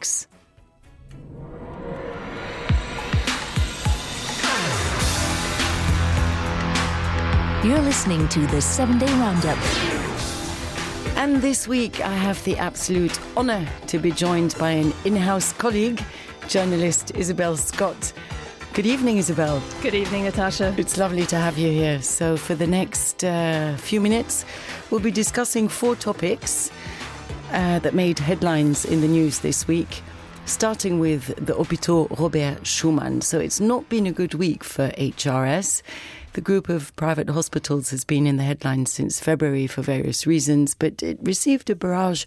topics. You're listening to the 7-Day Roundup. And this week I have the absolute honour to be joined by an in-house colleague, journalist Isabel Scott. Good evening, Isabel. Good evening, Natasha. It's lovely to have you here. So for the next few minutes, we'll be discussing 4 topics that made headlines in the news this week, starting with the Hôpital Robert Schuman. So it's not been a good week for HRS. The group of private hospitals has been in the headlines since February for various reasons, but it received a barrage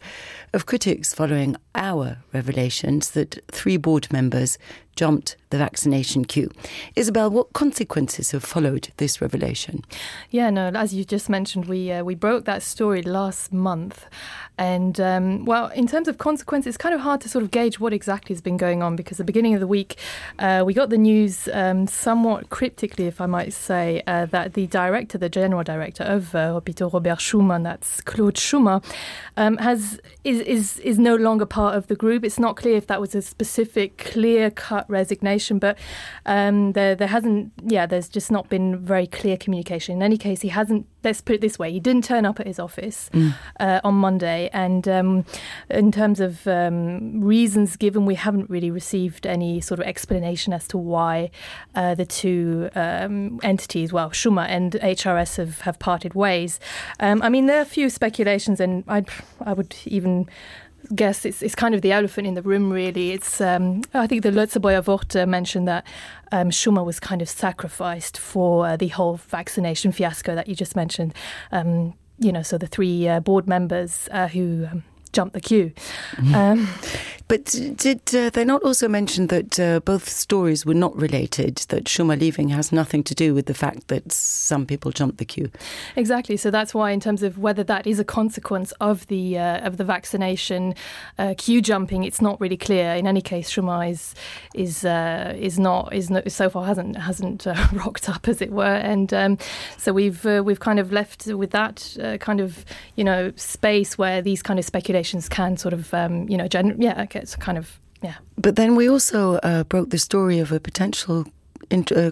of critics following our revelations that 3 board members jumped the vaccination queue. Isabel, what consequences have followed this revelation? Yeah, no, as you just mentioned, we broke that story last month. And, well, in terms of consequences, it's kind of hard to sort of gauge what exactly has been going on, because at the beginning of the week, we got the news somewhat cryptically, if I might say, that the general director of Hôpital Robert Schuman, that's Claude Schumacher, is no longer part of the group. It's not clear if that was a specific, clear-cut resignation, but there's just not been very clear communication. In any case, he hasn't, let's put it this way, he didn't turn up at his office on Monday, and in terms of reasons given, we haven't really received any sort of explanation as to why the 2 entities, well, Schumacher and HRS have parted ways. I mean, there are a few speculations, and I would even guess it's kind of the elephant in the room, really. It's I think the Lotse Wort mentioned that Schumacher was kind of sacrificed for the whole vaccination fiasco that you just mentioned. So the 3 board members who jumped the queue. But did they not also mention that both stories were not related, that Schumacher leaving has nothing to do with the fact that some people jumped the queue? Exactly. So that's why, in terms of whether that is a consequence of the vaccination queue jumping, it's not really clear. In any case, Schumacher is not so far hasn't rocked up, as it were, and so we've kind of left with that kind of space where these kind of speculations can sort of it's kind of, yeah. But then we also broke the story of a potential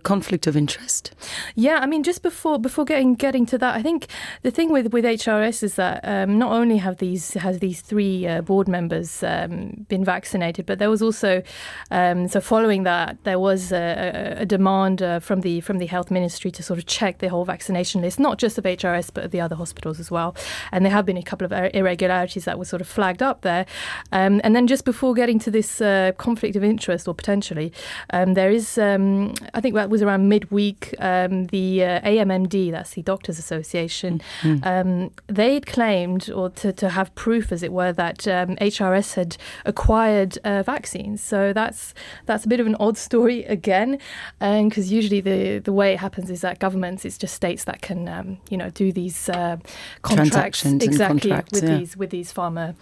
conflict of interest. Yeah, I mean, just before getting to that, I think the thing with HRS is that not only has these 3 board members been vaccinated, but there was also so following that there was a demand from the health ministry to sort of check the whole vaccination list, not just of HRS but of the other hospitals as well. And there have been a couple of irregularities that were sort of flagged up there. And then just before getting to this conflict of interest, or potentially, there is. I think that was around midweek, the AMMD, that's the Doctors Association, they had claimed, or to have proof, as it were, that HRS had acquired vaccines. So that's a bit of an odd story again, because usually the way it happens is that governments, it's just states that can do these contracts with these pharma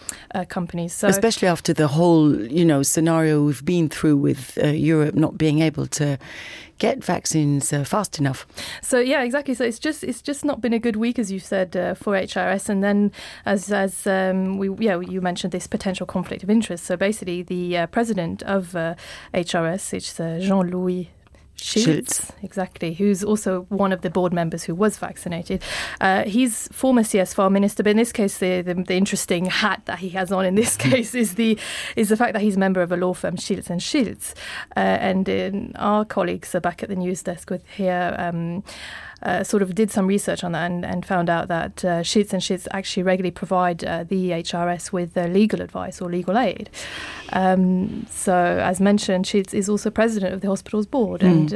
companies. So, especially after the whole scenario we've been through with Europe not being able to get vaccines fast enough. So yeah, exactly. So it's just not been a good week, as you said, for HRS. And then as you mentioned this potential conflict of interest. So basically, the president of HRS, it's Jean-Louis Schiltz, exactly, who's also one of the board members who was vaccinated. He's former CSFAR minister, but in this case, the interesting hat that he has on in this case is the fact that he's a member of a law firm, Schiltz and Schiltz. And our colleagues are back at the news desk with here. Sort of did some research on that and found out that Schiltz and Schiltz actually regularly provide the HRS with legal advice or legal aid. So, as mentioned, Schiltz is also president of the hospital's board, and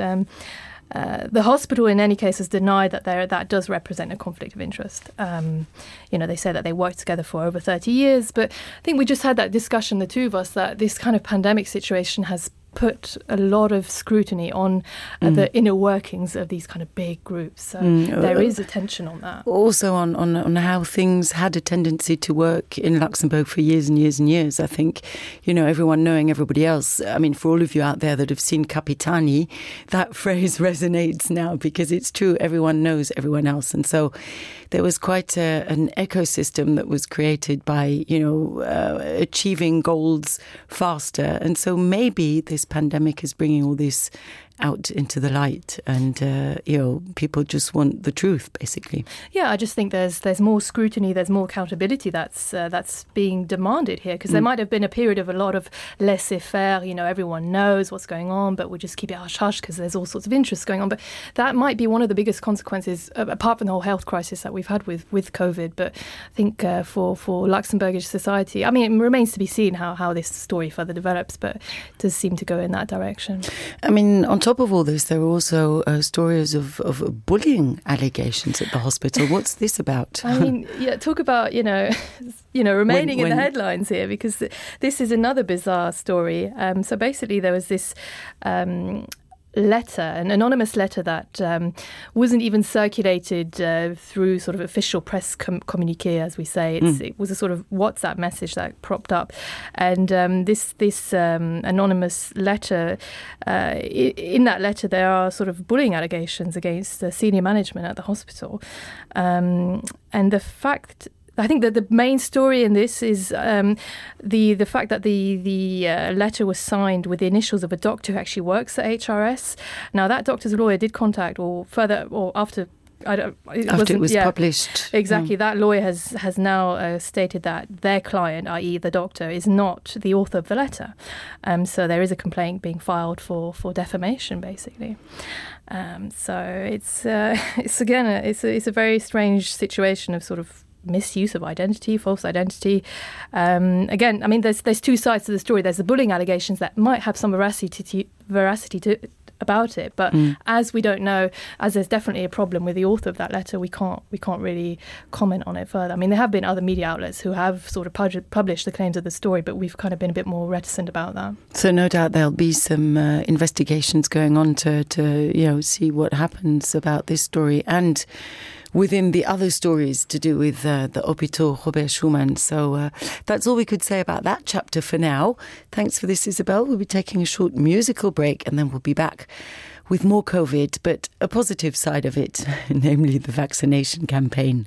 the hospital, in any case, has denied that does represent a conflict of interest. They say that they worked together for over 30 years, but I think we just had that discussion, the two of us, that this kind of pandemic situation has put a lot of scrutiny on the inner workings of these kind of big groups. So there is attention on that. Also on how things had a tendency to work in Luxembourg for years and years and years. I think, everyone knowing everybody else. I mean, for all of you out there that have seen Capitani, that phrase resonates now because it's true. Everyone knows everyone else. And so there was quite an ecosystem that was created by, achieving goals faster. And so maybe this pandemic is bringing all this out into the light, and people just want the truth, basically. Yeah, I just think there's more scrutiny, there's more accountability that's being demanded here, because there might have been a period of a lot of laissez-faire. Everyone knows what's going on, but we'll just keep it hush-hush because there's all sorts of interests going on. But that might be one of the biggest consequences, apart from the whole health crisis that we've had with COVID. But I think for Luxembourgish society, I mean, it remains to be seen how this story further develops, but it does seem to go in that direction. I mean, on top of all this, there are also stories of bullying allegations at the hospital. What's this about? I mean, talk about, remaining in the headlines here, because this is another bizarre story. So basically there was this letter, an anonymous letter that wasn't even circulated through sort of official press communique, as we say. It was a sort of WhatsApp message that propped up, and this anonymous letter, in that letter there are sort of bullying allegations against the senior management at the hospital, and the fact, I think that the main story in this is the fact that the letter was signed with the initials of a doctor who actually works at HRS. Now, that doctor's lawyer did contact, after it was published. Exactly. That lawyer has now stated that their client, i.e. the doctor, is not the author of the letter. So there is a complaint being filed for defamation, basically. So it's again it's a very strange situation of sort of misuse of identity, false identity. Again, I mean, there's two sides to the story. There's the bullying allegations that might have some veracity about it, but as we don't know, as there's definitely a problem with the author of that letter, we can't really comment on it further. I mean, there have been other media outlets who have sort of published the claims of the story, but we've kind of been a bit more reticent about that. So no doubt there'll be some investigations going on to see what happens about this story and within the other stories to do with the Hôpital Robert Schumann. So that's all we could say about that chapter for now. Thanks for this, Isabel. We'll be taking a short musical break and then we'll be back with more COVID, but a positive side of it, namely the vaccination campaign.